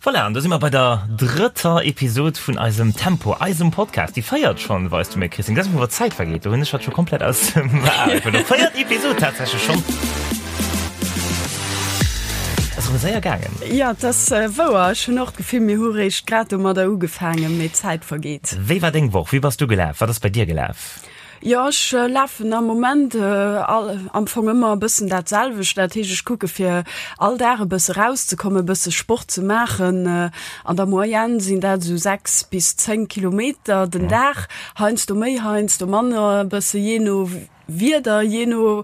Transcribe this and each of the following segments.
Voilà, an do si mer bei der drëtter Episod vun eisem Tempo, eisem Podcast. Déi véiert schonn, weis du mir, Christine. Dat ass wou d'Zäit vergeet. Do hunn ech hatt scho komplett aus dem Ae verluer. Véiert Episod tatsächlech schonn. Ass erëm séier gaangen. Jo, et ass wouer. Ech hunn och d'Gefill, mir hu réischt grad domadder ugefaangen, mee d'Zäit vergeet. Wéi war deng Woch? Wéi bass du gelaf? Wat ass bei dir gelaf? Jo, ech lafen am Moment am Fong ëmmer e bëssen dat selwecht. Dat heescht, ech kucke fir all Dag e bësse rauszekommen, e bësse Sport ze maachen. An der Moyenne sinn dat esou 6 bis 10 Kilometer den Dag, heiansdo méi, heiansdo manner, e bësse jee no Wieder, jee no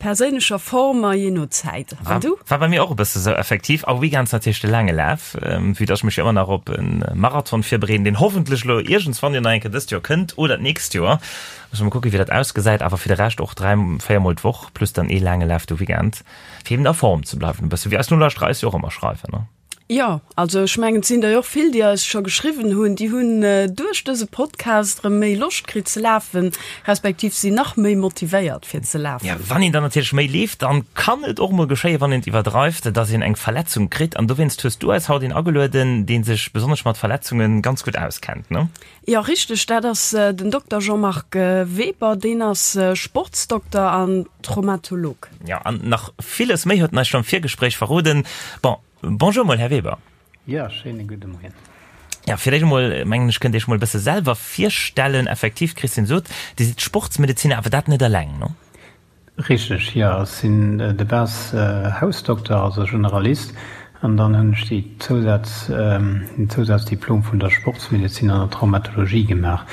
Perséinlecher Form a jee no Zäit. An du? War bei mir och e bësse sou, effektiv. A Weekends natierlech de laange Laf, vue dass ech mech jo ëmmer nach op e Marathon virbereeden, deen hoffentlech elo iergendswann jo nach eng Kéier dëst Joer kënnt oder d'nächst Joer. Musse mer kucken, wéi dat ausgesäit. Awer fir de Rescht och 3, 4 mol d'Woch plus dann ee laange Laf de Weekend, fir eben a Form ze bleiwen e bësse, wéi eis Nolauschterer eis jo och ëmmer schreiwen, ne? Jo, also ech mengen, et sinn der jo och vill, déi eis scho geschriwwen hunn, déi hunn duerch dëse Podcast erëm méi Loscht kritt ze lafen, respektiv sinn nach méi motivéiert fir ze lafen. Jo, wann een dann natierlech méi leeft, dann kann et och mol geschéien, wann een et iwwerdreift, dass een eng Verletzung kritt. An dowéinst hues du eis haut een agelueden, dee sech besonnesch mat Verletzunge ganz gutt auskennt, ne? Jo, richteg, dat ass den Dokter Jean-Marc Weber, deen ass Sportsdokter an Traumatolog. Jo, an nach villes méi huet en eis scho am Virgespréich verroden. Bon, bonjour mol, Här Weber. Jo, schéine gudde Moien. Jo, fir d'éischt emol, mengen ech, kënnt Dir Iech mol e bësse selwer virstellen. Effektiv, d'Christine sot, Dir sidd Sportsmedeziner, awer dat net eleng, no? Richteg, jo. Ech sinn de base Hausdokter, also Generalist, an dann hunn ech déi Zousaz, den Zousazdiplom vun der Sportsmedezin an der Traumatologie gemaach,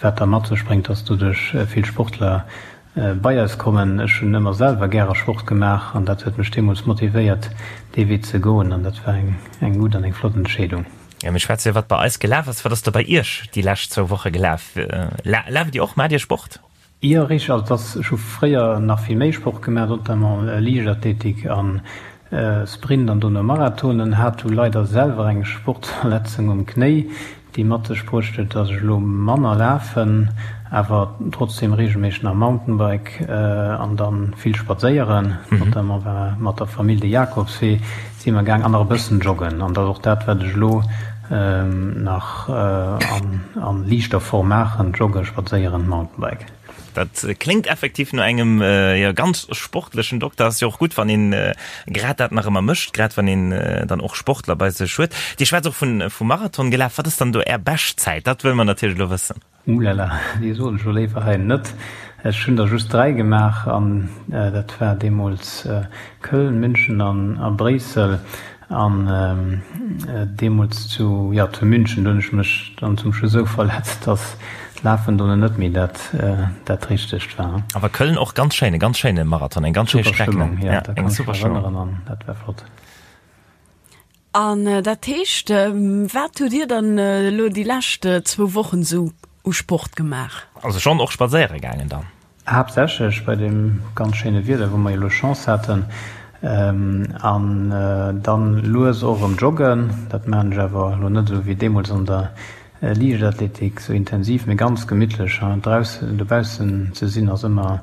wat da mat sech bréngt, dass doduerch vill Sportler bei eis kommen. Ech hunn ëmmer selwer gäre Sport gemaach an dat huet mech deemools motivéiert, dee Wee ze goen an dat war eng eng gutt an eng flott Entscheedung. Jo, mir schwätze jo, wat bei eis gelaf ass. Wat ass da bei Iech déi lescht zwou Woche gelaf? Laaft Dir och? Maacht Dir Sport? Jo, richteg. Also dass, ech hu fréier nach vill méi Sport gemaach, notamment Liichtathletik an Sprint an dono Marathonen. Hat du leider selwer eng Sportverletzung um Knéi, déi mat sech bruecht huet, dass ech elo manner lafen, awer trotzdem regelméisseg nach Mountainbike an dann vill spadséieren. Notamment war mat der Famill de Jakobswee si mer gaang an nach e bëssen joggen. An dat ass och dat, wat ech elo nach an liichter Form maachen, joggen, spadséieren, Mountainbike. Dat kléngt effektiv no engem jo ganz sportlechen Dokter. Ass jo och gutt, wann een grad dat nach ëmmer mécht, grad wann een dann och Sportler bei sech huet. Dir schwätzt och vun vum Marathon gelaf. Wat ass dann do Är Beschtzäit? Dat wëlle mer natierlech elo wëssen. Oulala, déi soen ech lo léiwer hei net. Ech hunn der just 3 gemaach an dat war deemools Köln, München an a Bréissel. An deemools zu, jo, zu München, do hunn ech mech dann zum Schluss esou verletzt, dass d'Lafen dono net méi dat dat Richtegt war. Awer Köln och ganz schéin, e ganz schéine Marathon, eng ganz schéi Super Streck, ne? Stëmmung, jo, da kann ech mech erënneren an dat war flott. An dat heescht, wat hutt Dir dann elo déi lescht zwou Wochen esou u Sport gemaach? Also schonn och spadséiere gaangen dann? Haaptsächlech bei deem ganz schéine Wieder, wou mer jo elo Chance haten. An dann lues och erëm joggen. Dat maachen ech awer elo net esou wéi deemools an der Liichtathletik, esou intensiv, mee ganz gemittlech. Draussen, dobaussen ze sinn ass ëmmer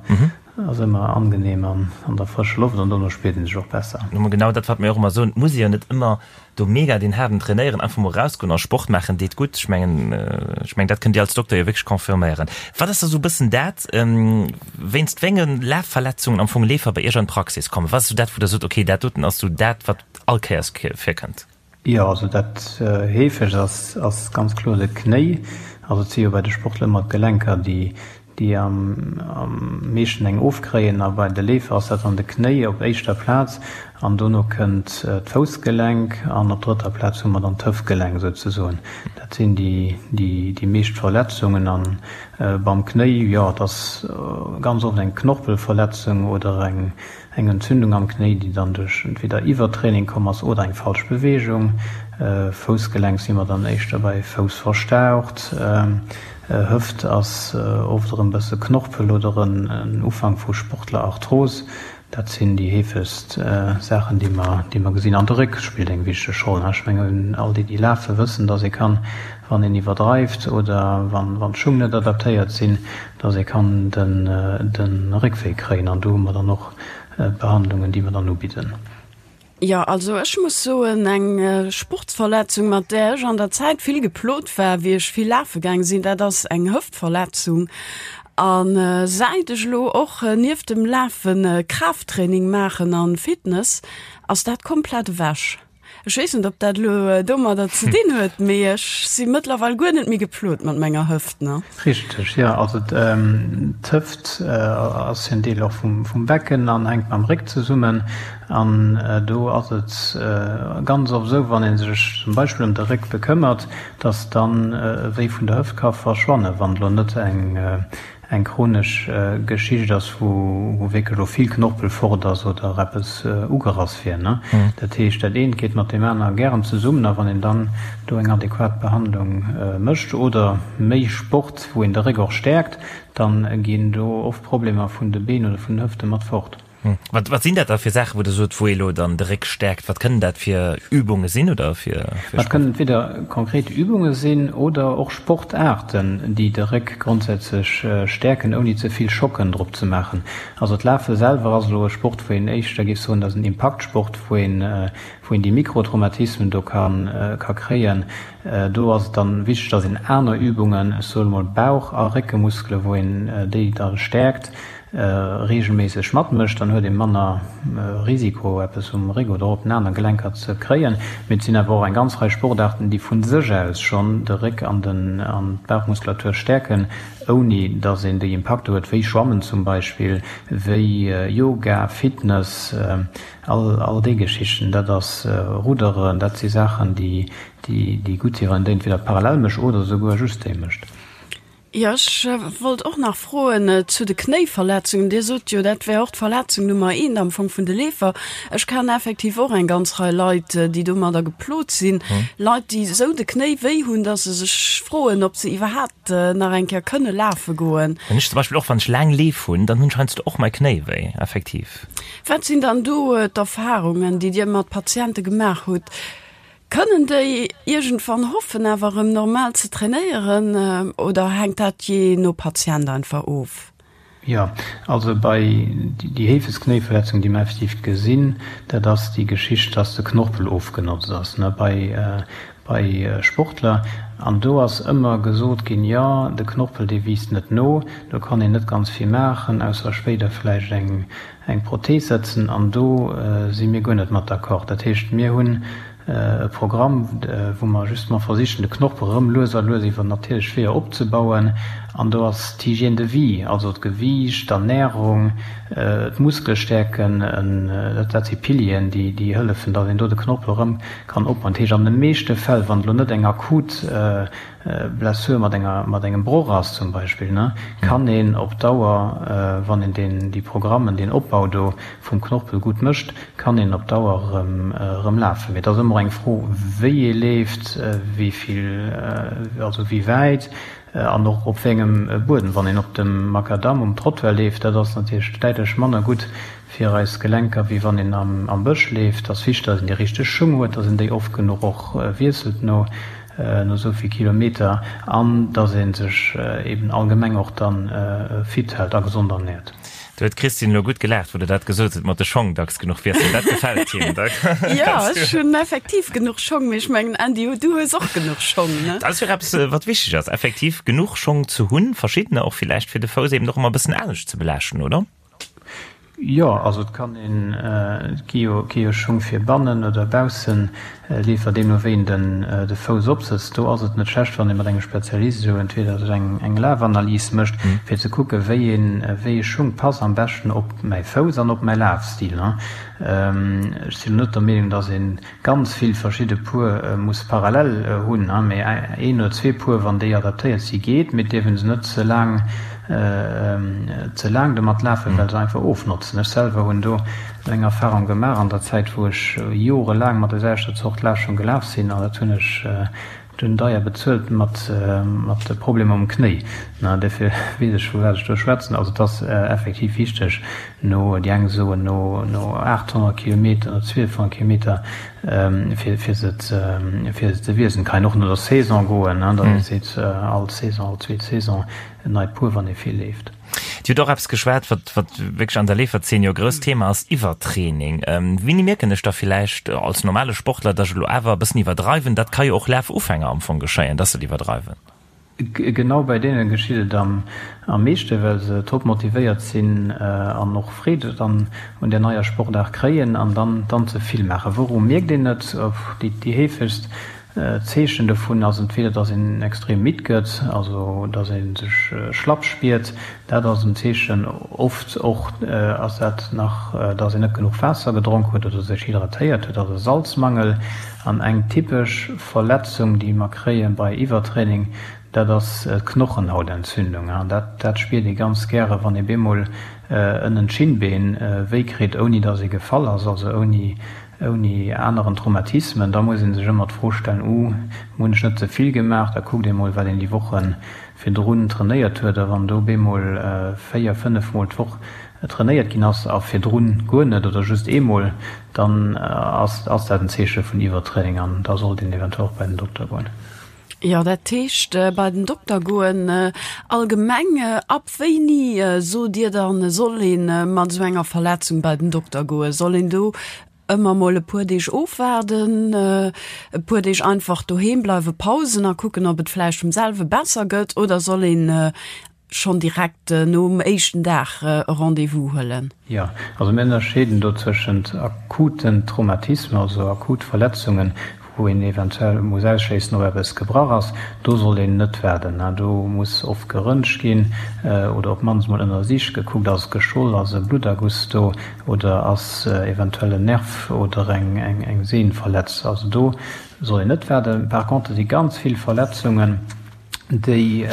Ass ëmmer angenehm an an der frëscher Loft an dono spiert een sech och besser. Mä genau dat wat mir och ëmmer soen, et muss ee jo net ëmmer do mega deen haarden trainéieren, einfach mol erausgoen a Sport maachen deet gutt. Ech mengen, ech mengen dat kënnt Dir als Dokter jo wierklech confirméieren. Wat ass da sou e bëssen dat, wéinst wéi enge Lafverletzungen am Fong Leefer bei Iech an d'Praxis kommen? Wat ass sou dat wou Der sot, okay dat doten ass sou dat wat all Kéiers virkënnt? Jo, also dat heefegst ass, ass ganz kloer de Knéi. Also et si jo bei de Sportler ëmmer d'Gelenker, déi, déi am, am meeschten eng ofkréien. A bei de Leefer ass dat dann de Knéi op éischter Plaz an dono kënnt d'Foussgelenk an op drëtter Plaz hu mer dann d'Hëftgelenk souzesoen. Dat sinn déi, déi, déi meescht Verletzungen. An beim Knéi, jo, et ass ganz oft eng Knorpelverletzung oder eng, Eng Entzündung am Knéi, déi dann duerch entweder Iwwertraining komm ass oder eng falsch Beweegung. Foussgelenk si mer dann éischter bei Fouss verstaucht. Hëft ass oft erëm bësse Knorpel oder en Ufank vu Sportlerarthros. Dat sinn déi heefegst Saachen, déi mer, déi mer gesinn. An de Réck spillt eng wichteg Roll. Ech mengen, all déi, déi lafen, wëssen, dass ee kann, wann een iwwerdreift oder wann d'Schung net adaptéiert sinn, dass ee kann de Réckwéi kréien an do hu mer dann och Behandlungen, déi mer dann ubidden. Jo, also ech muss soen, eng Sportsverletzung, mat där ech an der Zäit vill geplot war, wéi ech vill lafe gaang sinn, dat ass eng Hëftverletzung. A säit ech elo och nieft dem Lafe Kraafttraining maachen an Fitness, ass dat komplett ewech. Ech weess net, ob dat elo domadder ze dinn huet, mee ech si mëttlerweil guer net méi geplot mat menger Hëft, ne? Richteg, jo. Also d'Hëft ass jo en Deel och vum Becken an hänkt mam Réck zesummen. An do ass et ganz oft esou, wann ee sech zum Beispill ëm de Réck bekëmmert, dass dann e Wéi vun der Hëft ka verschwannen, wann elo net eng eng chronesch Geschicht ass, wou wierklech elo vill Knorpel fort ass oder eppes ugerass wier. Dat heescht, dat eent geet mat deem aner gären zesummen a wann een dann do eng adequat Behandlung mécht oder méi Sport, wou een de Réck och stäerkt, da ginn do oft Problemer vun de Been oder vun den Hëfte mat fort. Wat, wat sinn dat da fir Saachen, wou Der sot, wou ee elo dann de Réck stäerkt? Wat kënnen dat fir Übunge sinn oder fir, fir Dat kënnen entweder konkret Übunge sinn oder och Sportaarten, déi de Réck grondsätzlech stäerken, ouni ze vill Schocken drop ze maachen. Also d'Lafe selwer ass elo e Sport, wou een éischter géif soen, dat ass en Impaktsport, wou een, wou een déi Mikrotraumatismen do ka, ka kréien. Do ass et dann wichteg, dass een aner Übungen, ech soe mol Bauch a Réckemuskele, wou een déi da stäerkt, reegelméisseg matmécht, dann huet ee manner Risiko eppes um Réck oder op den aner Gelenker ze kréien. Mee et sinn awer och eng ganz Rei Sportaarten, déi vu sech aus schonn de Réck an den an d'Bauchmuskulatur stäerken, ouni datt een déi Impakter huet, wéi Schwammen zum Beispill, wéi Yoga, Fitness, all all déi Geschichten. Dat ass Rudderen, dat si Saachen, déi déi gutt sinn, wann een déi entweder parallel mécht oder esouguer just déi mécht. Jo, ech wollt och nach froen zu de Knéiverletzungen. Dir sot jo, dat wär och d'Verletzung Nummer eent am Fong vun de Leefer. Ech kennen effektiv och eng ganz Rei Leit, déi domadder geplot sinn. Leit, déi esou de Knéi wéi hunn, datt se sech froen, ob se iwwerhaapt nach eng Kéier kënne lafe goen. Hunn ech zum Beispill och, wann ech laang Leef hunn, dann hunn ech heiansdo och mei Knéi wéi, effektiv. Wat sinn dann do d'Erfarungen, déi Dir mat Patiente gemaach hutt? Kënnen déi iergendwann hoffen awer erëm normal ze trainéieren oder hänkt dat jee no Patient einfach of? Jo, also bei déi heefegst Knéiverletzung déi mer effektiv gesinn, dat ass déi Geschicht, dass de Knorpel ofgenotzt ass, ne, bei bei Sportler. An do ass ëmmer gesot ginn, jo de Knorpel dee wiisst net no, do kann een net ganz vill maachen, ausser spéider vläicht eng eng Prothees setzen an do si mir guer net mat d'accord. Dat heescht, mir hunn e Programm, wou mer justement versichen, de Knorpel erëm lues a lues iwwer natierlech Weeër opzebauen. An do ass d'Hygiène de vie, also d'Gewiicht, d'Ernärung, d'Muskelstäerken, dat si Pilieren, déi hëllefen, datt een do de Knorpel erëm kann opbauen. Dat heescht, an de meeschte Fäll, wann et elo net eng akut Blessure mat enger, mat engem Broch ass zum Beispill, ne, kann een op Dauer, wann een deen, déi Programmen, deen Opbau do vum Knorpel gutt mécht, kann een op Dauer erëm, erëm lafen. Mee et ass ëmmer eng Fro, wéi ee leeft, wéi vill, also wéi wäit an och op wéi engem Buedem. Wann een op dem Makadamm um Trottoir leeft, dat ass natierlech däitlech manner gutt fir eis Gelenker, wéi wann een am Bësch leeft. Et ass wichteg, datt een déi richteg Schung huet, datt een déi oft genuch och wiesselt no no esou vill Kilometer an datt ee sech eben allgemeng och dann fit hält a gesond ernährt. Do huet d'Christine elo gutt gelaacht, wou de dat gesot huet mat de Schong dacks genuch wiesselen. Dat gefält him. Jo, ech hunn effektiv genuch Schong, mee ech mengen, Andy, du hues och genuch Schong, ne? Dat ass jo och eppes, wat wichteg ass, effektiv genuch Schong ze hunn, verschiddener och villäicht, fir de Fouss eben och ëmmer e bëssen anescht ze belaaschten, oder? Jo, also et kann een, et gi jo, gi jo Schung fir bannen oder baussen Leefer, deemno wéi een den de Fouss opsëtzt. Do ass et net schlecht, wann ee mat engem Spezialist esou entweder sech eng eng Lafanalys mécht, fir ze kucke wéi een, wéi ee Schung passt am beschten op mäi Fouss an op mäi Lafstil. Ech sinn elo net der Meenung, datt een ganz vill verschidde Puer muss parallel hunn, mee een oder zwee Puer, wann déi adaptéiert si geet, mee et dierf een se net ze laang ze laang domat lafen, well se einfach ofnotzen. Ech selwer hunn do eng Erfahrung gemaach an der Zäit, wou ech jorelaang mat der selwechter Zort Lafschong gelaf sinn, an dat hunn ech Dunn deier bezuelt mat mat Problemer um Knéi. Na, derfir weess ech vu wat ech do schwätzen. Also et ass effektiv wichteg no, déi eng soen no no 800 Kilometer, no 1200 Kilometer fir fir se ze fir se ze wiesselen. Kann een och no der Saison goen, datt ee seet all Saison, all zweet Saison en neit Puer, wann ee vill leeft. Dir hutt och eppes geschwat, wat, wat wierklech an der Leeferzeen jo e grousst Thema ass, Iwwertraining. Wéini mierken ech da villäicht als normale Sportler, dass ech elo awer e bëssen iwwerdreiwen? Dat ka jo och Lafufänger am Fong geschéien, dass se et iwwerdreiwen. Genau bei deene geschitt et am meeschte, well se top motivéiert sinn an och Freed dann un där neier Sportaart kréien an dann dann ze vill maachen. Wouru mierkt een et? Déi heefegst Zeechen dovun ass entweder, dass een extrem midd gëtt, also dass ee sech schlapp spiert, dat ass en Zeechen. Oft och ass dat nach, dass een net genuch Waasser gedronk huet oder sech hydratéiert huet, also Salzmangel. An eng typesch Verletzung, déi mer kréie bei Iwwertraining, dat ass d'Knochenhautentzündung. Dat dat spiert ee ganz gäre, wann ee bemol ënnen d'Schinnbeen wéi kritt, ouni dass ee gefall ass, also ouni ouni aneren Traumatismen. Da muss ee sech ëmmer d'Fro stellen, Uh, hunn ech net ze vill gemaach? Da kuckt ee mol, wat een déi Woche virdrun trainéiert huet. A wann do bemol 4, 5 mol d'Woch trainéiert ginn ass a virdrun guer net oder just eemol, dann ass ass dat en Zeeche vun Iwwertraining an da sollt een eventuell och bei den Dokter goen. Jo, dat heescht bei den Dokter goen. Allgemeng, ab wéini sot Dir dann, soll ee mat esou enger Verletzung bei den Dokter goen? Soll een do ëmmer mol e puer Deeg ofwaarden, e puer Deeg einfach doheem bleiwen, Pausen a kucken, ob et vläicht vum selwe besser gëtt, oder soll een schonn direkt nom éischten Dag e Rendez-vous huelen? Jo, also mir ënnerscheeden do tëschent akuten Traumatismen, also akut Verletzungen, wou een eventuell muss ausschléissen, ob eppes gebrach ass. Do soll een net waarden. Do muss oft geröntgt ginn oder op d'mannst mol ënnersicht, gekuckt, ass et geschwoll, ass e Blutterguss do oder ass eventuell en Nerv oder eng Sehn verletzt. Also do soll een net waarden. Par contre si ganz vill Verletzungen, déi,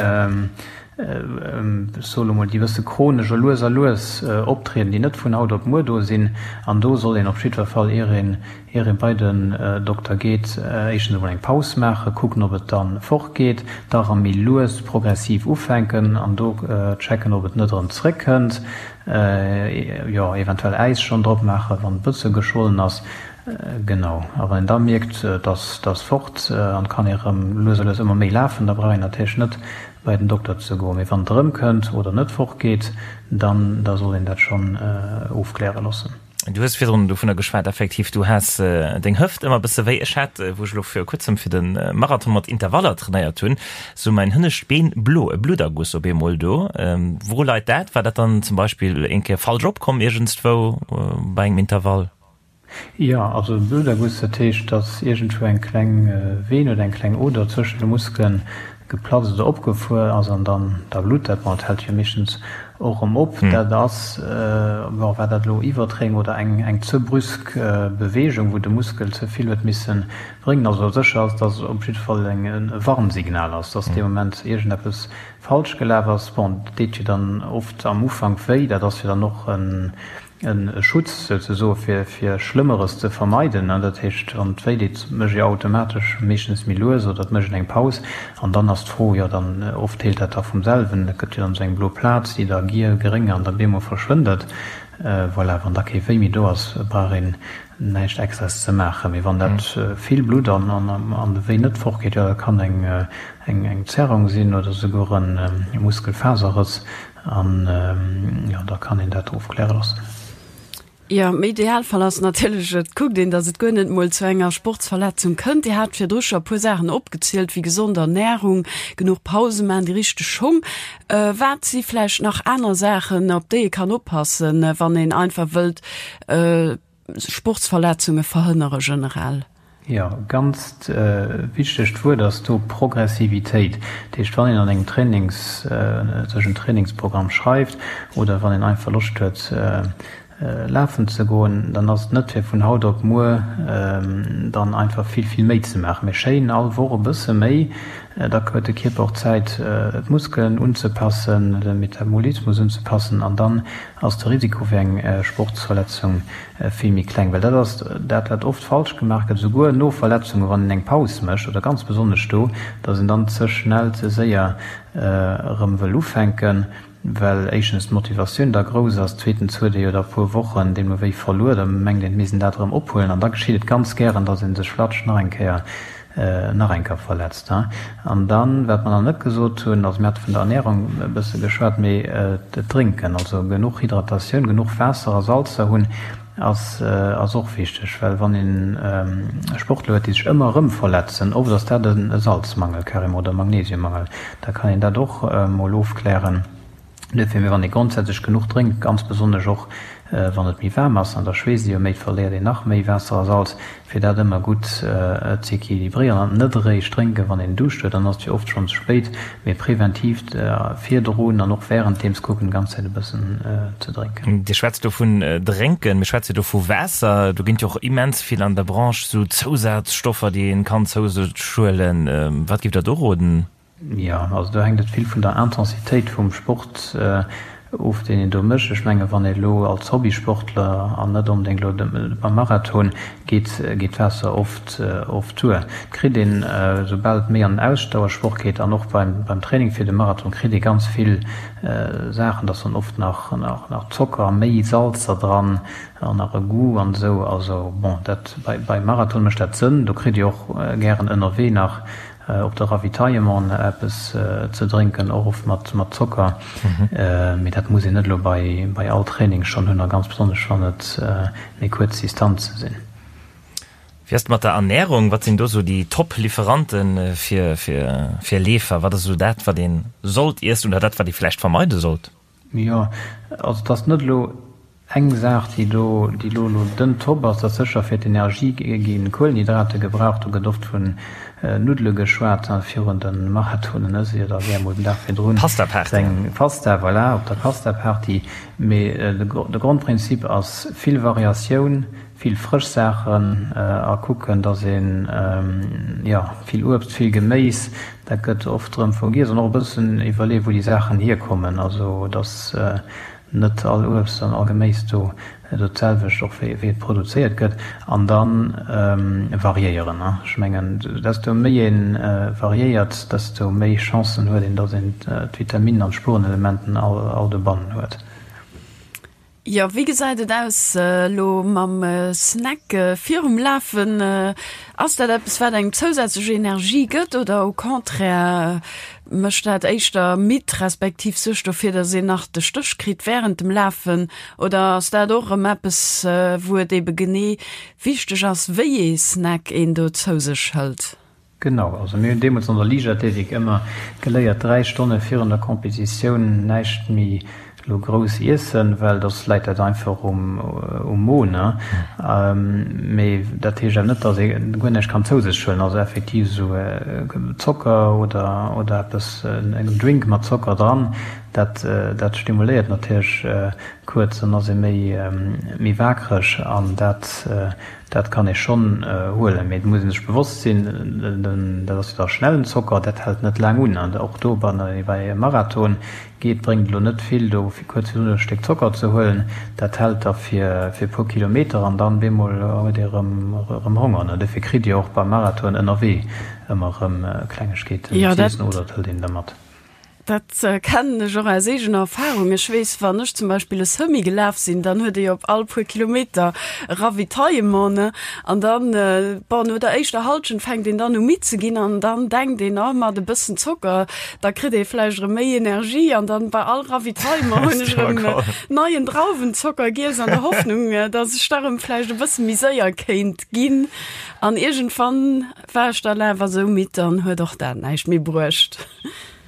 ech soe lo mol, déi e bësse chronesch a lues a lues optrieden, déi net vun haut op muer do sinn. An do soll een op jiddwer Fall, ier een, ier ee bei den Dokter geet, éischtens emol eng Paus maachen, kucken, ob et da fortgeet, da erëm méi lues progressiv ufänken an do checken, ob et net erëm zréckkënnt, jo, eventuell Äis schonn drop maachen, wann e bësse geschwollen ass. Genau. A wann een da mierkt, dass dass fort an kann ee rëm lues a lues ëmmer méi lafen, da brauch een natierlech net bei den Dokter ze goen. Mee wann et erëmkënnt oder net fortgeet, dann da soll een dat schonn ofkläre loossen. Du hues virdrun dovunner geschwat, effektiv, du has deng Hëft ëmmer e bësse wéi. Ech hat, wou ech elo vir kuerzem fir de Marathon mat Intervaller trainéiert hunn, sou mäin hënnescht Been blo, e Blutterguss op eemol do. Wouru leit dat? War dat dann zum Beispill eng Kéier falsch opkomm iergendswou bei engem Intervall? Jo, also e Bluterguss, dat heescht, datt iergendwou eng kleng Veen oder eng kleng Oder zwëschen de Muskele geplatzt oder opgefuer ass an dann da blutt dat. Bon, et hält jo meeschtens och erëm op. Dat ass, bon, war dat elo Iwwertraining oder eng eng ze brüsk Beweegung, wou de Muskel ze vill huet misse bréngen. Also sécher ass, datt et op jidde Fall eng e Warnsignal ass, datt dee Moment iergendeppes falsch gelaf ass. Bon, dat deet jo dann oft am Ufank wéi, dat ass jo dann och en E Schutz souzesoe fir fir Schlëmmeres ze vermeiden. Dat heescht, wann et wéi deet, mécht ee automatesch meeschtens méi lues oder et mécht een eng Paus. An dann ass d'Fro, jo dann oft heelt dat da vum selwen, et gëtt jo dann esou eng blo Plaz, déi da giel, gréng an da bemol verschwënnt et. Voilà, wann da kee Wéi méi do ass, brauch een näischt Extraes ze maachen. Mee wann dat vill blutt an an de Wéi net fortgeet, jo dat kann eng eng Zerrung sinn oder souguer e Muskelfaserrëss. An jo, da kann een dat ofkläre loossen. Jo, am Idealfall ass natierlech, et kuckt een, datt et guer net mol zu enger Sportsverletzung kënnt. Dir hat virdru scho e puer Saachen opgezielt, wéi gesond Ernärung, genuch Pause maachen, déi richteg Schong. Wat si vläicht nach aner Saachen, op déi ee kann oppassen, wann een einfach wëllt Sportsverletzunge verhënnere generell? Jo, ganzt wichtegt Wuert ass do Progressivitéit. Dat heescht, wann een an engem Trainings, sech en Trainingsprogramm schreift oder wann een einfach Loscht huet lafen ze goen, dann ass et net fir vun haut op muer dann einfach vill, vill méi ze maachen, mee schéin all Woch e bësse méi. Da huet de Kierper och Zäit d'Muskelen unzepassen, de Metabolismus unzepassen an dann ass de Risiko fir eng Sportsverletzung vill méi kleng. Well dat ass dat, wat oft falsch gemaach gëtt, esouguer no Verletzungen, wann een eng Paus mécht oder ganz besonnesch do, datt een dann ze schnell, ze séier erëm wëll ufänken, well éischtens d'Motivatioun da grouss ass, zweetens huet ee jo da puer Wochen deemno wéi verluer, da mengt een, et misst een dat erëm ophuelen an da geschitt et ganz gären, datt ee sech flatsch nach eng Kéier. nach eng Kéier verletzt. An dann, wat mer nach net gesot hunn, also mir hate vun der Ernährung e bësse geschwat, mee d'Drénken, also genuch Hydratatioun, genuch Waasser a Salzer hunn, ass ass och wichteg, well wann een Sportler huet, déi sech ëmmer erëm verletzen, oft ass dat e Salzmangel carrément oder e Magnesiummangel, da kann een dat och mol ofklären. Duerfir, mee wann ee grondsätzlech genuch drénkt, ganz besonnesch och wann et méi waarm ass, an da schweesst ee jo méi, verléiert een nach méi Waasser a Salz, fir dat ëmmer gutt z'equilibréieren an net eréischt drénken, wann een Duuscht huet, dann ass et jo oft schonn ze spéit, mee preventiv virdrun an och wärenddeems kucken, d'ganz Zäit e bëssen ze drénken. Dir schwätzt do vun drénken, mir schwätze do vu Waasser. Do ginn et jo och immens vill an der Branche sou Zousazstoffer, déi een kann zou sech huelen. Wat giff Der do roden? Jo, also do hänkt et vill vun der Intensitéit vum Sport of, deen een do mécht. Ech menge wann ee elo als Hobbysportler an net onbedéngt elo beim Marathon geet, geet d'Waasser oft oft duer. Et kritt een, soubal et méi an den Ausdauersport geet an och beim beim Training fir de Marathon, kritt ee ganz vill Saachen, da ass dann oft nach nach Zocker, méi Salzer dran an nach e Goût an esou. Also bon, dat bei beim Marathon mécht dat Sënn. Do kritt Dir och gären ënnerwee nach Op de Ravitaillement eppes ze drénken, och oft mat Zocker, mee dat muss een net elo bei all Training schonn hunn a ganz besonnesch wann et méi kuerz Distanze sinn. Wéi ass et mat der Ernärung? Wat sinn do sou déi Top-Liferante fir Leefer? Wat ass esou dat, wat ee sollt iessen oder dat, wat ee vläicht vermeide sollt? Jo, also et ass net elo eng Saach, déi do, déi elo elo den Top ass. Et ass sécher fir d'Energie gi Kuelenhydrate gebraucht. Do gëtt oft vun Nuddele geschwat virun de Marathonen, ëss ee jo da gär mol den Dag virdrun Pasta-Party. eng Pasta, voilà, op der Pasta-Party. Mee de Grondprinzip ass vill Variatioun, Vill frësch Saachen a kucken, dass een, jo, vill Uebst, vill Geméis, dat gëtt oft erëm vergiess an och e bëssen iwwerleeën, wou déi Saachen hierkommen. Also, dass net all Uebst an all Geméis do do d'selwecht och wéi et produzéiert gëtt. An da variéieren. Ech mengen, desto méi ee variéiert, desto méi Chancen huet een, dass een d'Vitaminen an d'Spurenelementen all dobannen huet. Jo, wéi gesäit et aus elo mam Snack virum Lafen? Ass dat eppes wat engem zousätzlech Energie gëtt oder au contraire mécht dat éischter midd, respektiv suergt dofir, datt een nach de Stéch kritt wärend dem Lafen? Oder ass dat och erëm eppes wou et ebe genee wichteg ass, wéi ee Snack een do zou sech hëlt? Genau, also mir hunn deemools an der Liichtathletik ëmmer geléiert, 3 Stonne virun der Competitioun näischt méi elo grouss iessen, well soss läit dat einfach um Mo, ne? Mee dat heescht awer net, datt ee guer näischt kann zou sech huelen, also effektiv esou Zocker oder oder eppes, en Drink mat Zocker dran, dat dat stimuléiert natierlech kuerz, dann ass ee méi méi waakreg an dat Dat kann ee schonn huelen, mee et muss ee sech bewosst sinn, dat ass jo da schnellen Zocker, dat hält net laang un. An och do, wann ee bei e Marathon geet, bréngt et elo net vill, do fir kuerz virdrun e Stéck Zocker ze huelen. Dat hält da fir e puer Kilometer an dann bemol huet ee erëm Honger. Dofir kritt Dir och beim Marathon ënnerwee ëmmer erëm Klengegkeeten z'iessen oder et hëlt een der mat. Dat kennen ech och aus eegener Erfahrung. Ech weess, wann ech zum Beispill e Semi gelaf sinn, dann huet ee jo op all puer Kilometer e Ravitaillement, ne? An dann, bon, no der éischter Hallschent fänkt een dann u midd ze ginn an dann denkt een, oh, mat e bëssen Zocker, da kritt ee vläicht erëm méi Energie. An dann bei all Ravitaillement hunn ech erëm neien Drauwenzocker giess an der Hoffnung, dass ech da erëm vläicht e bësse méi séier kéint ginn. An iergendwann war ech dann awer esou midd, dann huet och dat näischt méi bruecht.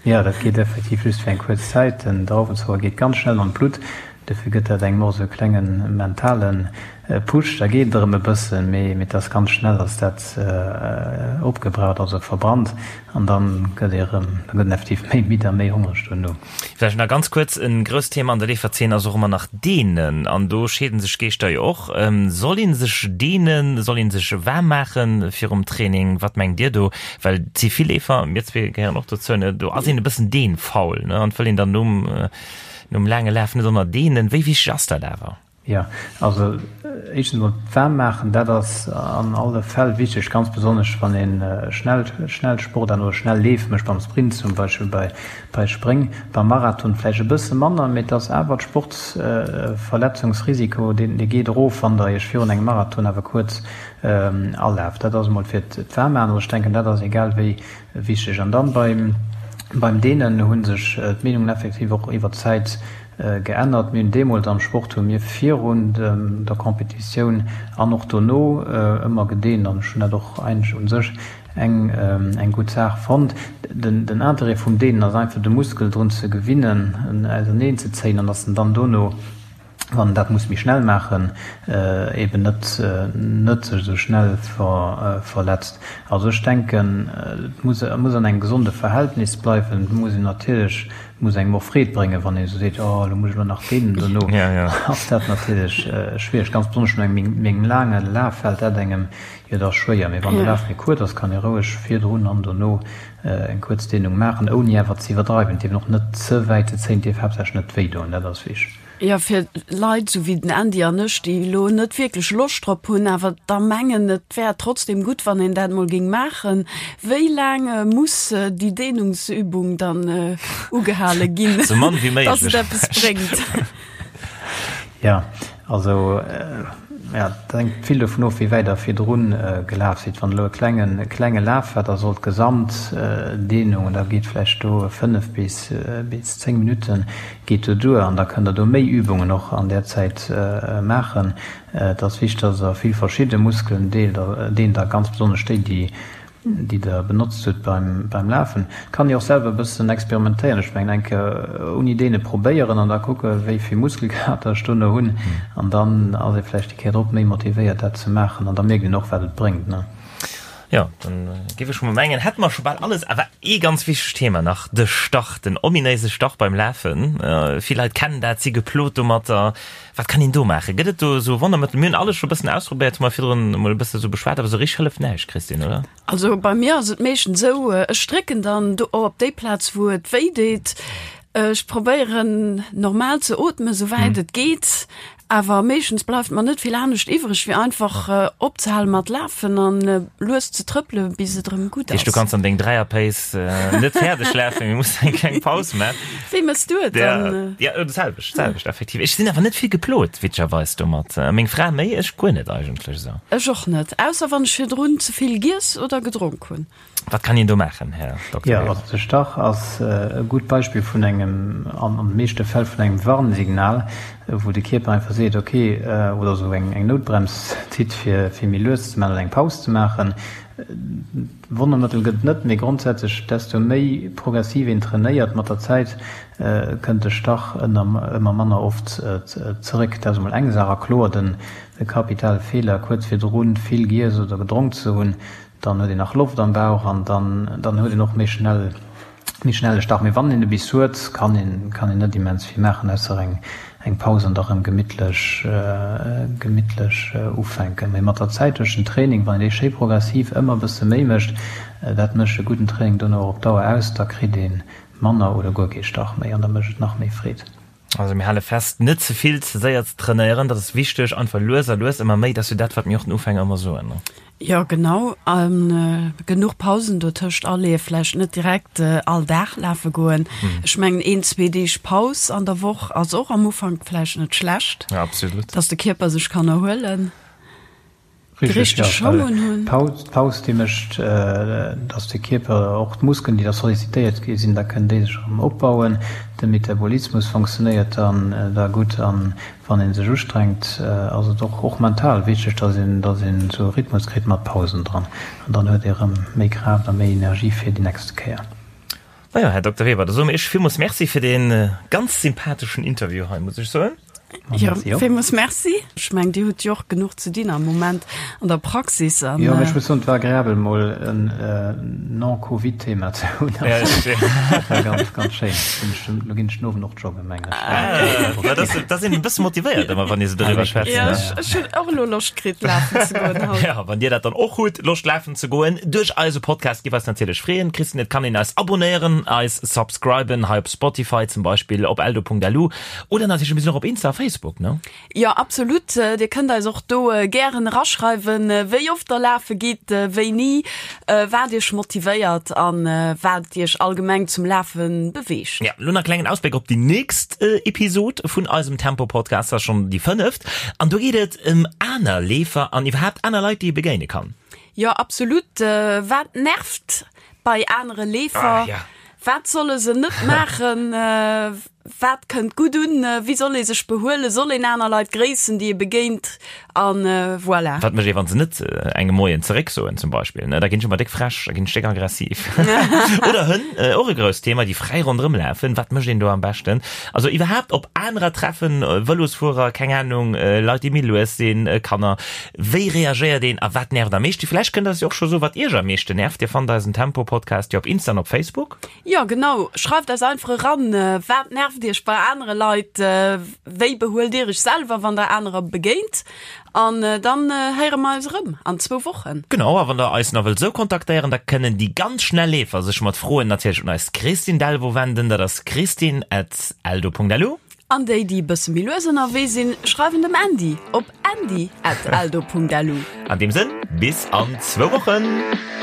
Jo, dat geet effektiv just fir eng kuerz Zäit. Den Drauwenzocker geet ganz schnell an d'Blutt, dofir gëtt dat engem och esou e klenge mentale Push. Da geet et erëm e bëssen, mee et ass ganz schnell ass dat opgebraucht, also verbrannt, an da gëtt ee erëm, da gëtt een effektiv méi midd a méi hongreg duerno. Vläicht nach ganz kuerz, E grousst Thema an der Leeferzeen ass och ëmmer nach Deenen, an do scheeden sech d'Geeschter jo och. Soll ee sech deenen, soll ee sech waarm maache virum Training? Wat mengt Dir do? Well et si vill Leefer, mir zwee gehéieren och dozou, ne, do ass een e bëssen deenfaul, ne, an et wëll een dann nom, nom laange Laf net ënner deenen. Wéi wichteg ass dat awer? Jo, also éischtens emol d'Waarm maachen, dat ass an alle Fäll wichteg, ganz besonnesch wann ee schnell, schnell Sport an oder schnell Leef mécht, beim Sprint zum Beispill, bei, bei Spréng, beim Marathon vläicht e bësse manner, mee et ass awer d'Sportsverletzungsrisiko, deen, dee geet erof, wann Der Iech virun engem Marathon awer kuerz. Alaf. Dat ass emol fir d'Waarmmaachen. Also ech denken, dat ass egal wéi wichteg. An dann beim, beim Deenen hu sech d'Meenungen effektiv och iwwer d'Zäit geännert. Mir hunn deemools am Sport hu mir virun der Competitioun an och dono ëmmer gedeent an ech hunn dat och eigentlech u sech eng, eng gutt Saach fonnt. Den, den Interêt vum Deenen ass einfach de Muskel drun ze gewinnen, en auserneen ze zéien an dass en dann dono, wann en dat muss méi schnell maachen, eben net net sech esou schnell verletzt. Also ech denken, et muss et muss an engem gesonde Verhältnis bleiwen. Et muss een natierlech, et muss engem och Freed bréngen, wann ee esou seet, oh elo muss ech elo nach deenen dono, ass dat natierlech schwiereg. Ganz besonnesch no engem méi laange Laf fält dat engem jo da schwéier. Mee wann de Laf méi kuerz ass, kann ee roueg virdrun an dono eng kuerz Dehnung maachen, ouni awer ze iwwerdreiwen. Et dierf een och net ze wäit ze zéien, et dierf haaptsächlech net wéi doen, dat ass wichteg. Jo, fir Leit esou wéi den Andy an ech, déi elo net wierklech Loscht drop hunn, awer da mengen, et wär trotzdem gutt, wann een dat mol géing maachen. Wéi laang muss déi Dehnungsübung dann ugehale ginn, Sou mann wéi dass méiglech. et eppes bréngt? Jo, also ja, et hänkt vill dovun of, wéi wäit Der virdrun gelaf sidd. Wann elo e klengen, e klenge Laf war, da soll d'Gesamtdehnung, und da geet vläicht do 5 bis, bis 10 Minutten geet do duer an da kënnt Der do méi Übungen och an där Zäit maachen. Et ass wichteg, dass Der vill verschidde Muskelen deent a ganz besonnesch déi, déi déi Der benotzt hutt beim beim Lafen. Kann ee och selwer e bëssen experimentéieren. Ech mengen eng Kéier ouni deene probéieren an da kucke wéi vill Muskelkater ech dono hunn an dann ass ee vläicht déi Kéier drop méi motivéiert dat ze maachen an da mierkt een och wat et bréngt, ne. Jo, dann géif ech mol mengen, hätte mer scho bal alles. Awer ee ganz wichtegt Thema nach, de Stach, den ominéise Stach beim Lafen. Vill Leit kennen dat, si geplot domatter. Wat kann een do maachen? Gëtt et do esou Wonnermëttel? Mir hunn alles scho e bëssen ausprobéiert, hu mer virdrun emol e bësse sou beschwat, awer esou richteg hëlleft näischt, Christine, oder? Also bei mir ass et meeschtens esou, ech drécken dann do op déi Plaz, wou et wéi deet. Ech probéieren normal ze ootmen, esou wäit et geet. Awer meeschtens bleift mer net vill anescht iwwreg, wéi einfach opzehale mat lafen an lues ze trëppele bis et erëm gutt ass. Du kanns an deng Dräier-Pace net fäerdeg lafen, mee muss eng kleng Paus man. Wéi mëss du et dann? Ja, dat selwecht, selwecht effektiv. Ech sinn awer net vill geplot, witzegerweis domat. Meng Fra méi, ech guer net eigentlech esou. Ech och net, ausser wann ech virdrun ze vill giess oder gedronk hunn. Wat kann een do maachen, Här Dokter Jo, also de Stach ass e gutt Beispill vun engem, an de meeschte Fäll vun engem Warnsignal, wou de Kierper einfach seet, ok, oder esou eng Noutbrems zitt, fir méi lues ze maachen oder eng Paus ze maachen. Wonnermëttel gëtt et net, mee grondsätzlech, desto méi progressiv een trainéiert mat der Zäit, kënnt de Stach ëmmer manner oft zeréck. Dat ass emol eng Saach. A kloer, den kapitale Feeler, kuerz virdrun vill giess oder gedronk ze hunn, Dann huet een nach Loft am Bauch an dann dann huet een och méi schnell méi schnell e Stach. Mee wann een e bis huet, kann een kann een net immens vill maachen, ausser eng eng Paus an da rëm gemittlech gemittlech ufänken. Mee mat der Zäit duerch den Training, wann een dee schéi progressiv ëmmer e bësse méi mécht, dat mécht e gudden Training dono och op Dauer aus, da kritt ee manner oder guer kee Stach méi an da mécht et nach méi Freed. Also mir hale fest, net ze vill, ze séier ze trainéieren, dat ass wichteg, einfach lues a lues ëmmer méi, dat ass jo dat, wat mir och den Ufänger ëmmer soen, ne? Jo, genau, a genuch Pausen dotëscht aleeë, vläicht net direkt all Dag lafe goen. Ech mengen een, zwee Deeg Paus an der Woch ass och am Ufank vläicht net schlecht, Ja, absolut. dass de Kierper sech kann erhuelen. Déi richteg Schong un hunn. D'Paus déi mécht, datt de Kierper, och d'Muskelen déi da sollicitéiert gi sinn, da kënnen déi sech erëm opbauen. De Metabolismus fonctionnéiert dann da gutt an wann ee sech ustrengt, ass et och och mental wichteg, datt een datt een esou e Rhythmus kritt mat Pausen dran an dann huet ee erëm méi Kraaft a méi Energie fir déi nächste Kéier. Majo, Här Dokter Weber, da soe mir Iech villmools Merci fir dee ganz sympatheschen Interview hei, muss ech soen. Jo, villmools Merci. Ech mengen, Dir hutt jo och genuch ze dinn am Moment an der Praxis. An, jo, mee ech muss soen, et war agreabel, mol en non-Covid-Thema ze hunn. Dat war ganz, ganz schéin. Elo ginn ech den Owend och joggen, mengen ech. Ah, dat ass een e bësse motivéiert ëmmer, wann ee sou doriwwer schwätzt. Jo, ech hunn och elo Loscht kritt, lafen ze goen haut. Jo, wann Dir dat dann och hutt, Loscht lafen ze goen duerch eise Podcast, giff eis natierlech freeën. Christine, et kann een eis abonnéieren, eis subscriben hei op Spotify zum Beispill, op eldo.lu oder natierlech mir sinn och op Insta. Facebook, ne? Jo, absolut. Dir kënnt eis och do gären eraschreiwen, wéi oft der lafe gitt, wéini, wat iech motivéiert an wat iech allgemeng zum Lafe beweegt. Ja, lo nach e klengen Ausbléck op déi nächst Episod vun eisem Tempo-Podcast, dat ass schonn déi fënneft. An do geet et ëm aner Leefer an iwwerhaapt aner Leit, déi ee begéine kann. Jo, absolut. Wat nervt bei anere Leefer? Ah, ja. Wat solle se net maachen? Wat kënnt gutt un? Wéi soll ee sech behuelen? Soll een aner Leit gréissen, déi ee begéint? An voilà. Wat mécht ee, wann se net engem Moien zeréck soen zum Beispill? Da ginn ech ëmmer déck frech, da ginn ech déck aggressiv. Oder Hënn, och e grousst Thema, déi fräi ronderëm lafen. Wat mécht een do am beschten? Also iwwerhaapt op anerer treffen, Vëlosfuerer, keng Anung, Leit, déi méi lues sinn, Kanner. Wéi reagéiert een a wat nervt am meeschten? Vläicht kënnt der eis jo och scho soen, wat iech am meeschten nervt. Dir fannt eisen Tempo-Podcast jo op Insta an op Facebook. Jo, genau. Schreift eis einfach eran, Wat nervt iech bei anere Leit? Wéi behuelt dir iech selwer, wann der anerer begéint? An dann héiere mer eis erëm an zwou Wochen. Genau, a wann der eis nach wëllt esou kontaktéieren, da kënnen déi ganz schnell Leefer sech mat Froen natierlech un eis Christine Delvaux wenden. Dat ass christine at eldo.lu. An déi, déi e bësse méi lues ënnerwee sinn, schreiwen dem Andy op andy at eldo.lu. An deem Sënn, bis an zwou Wochen!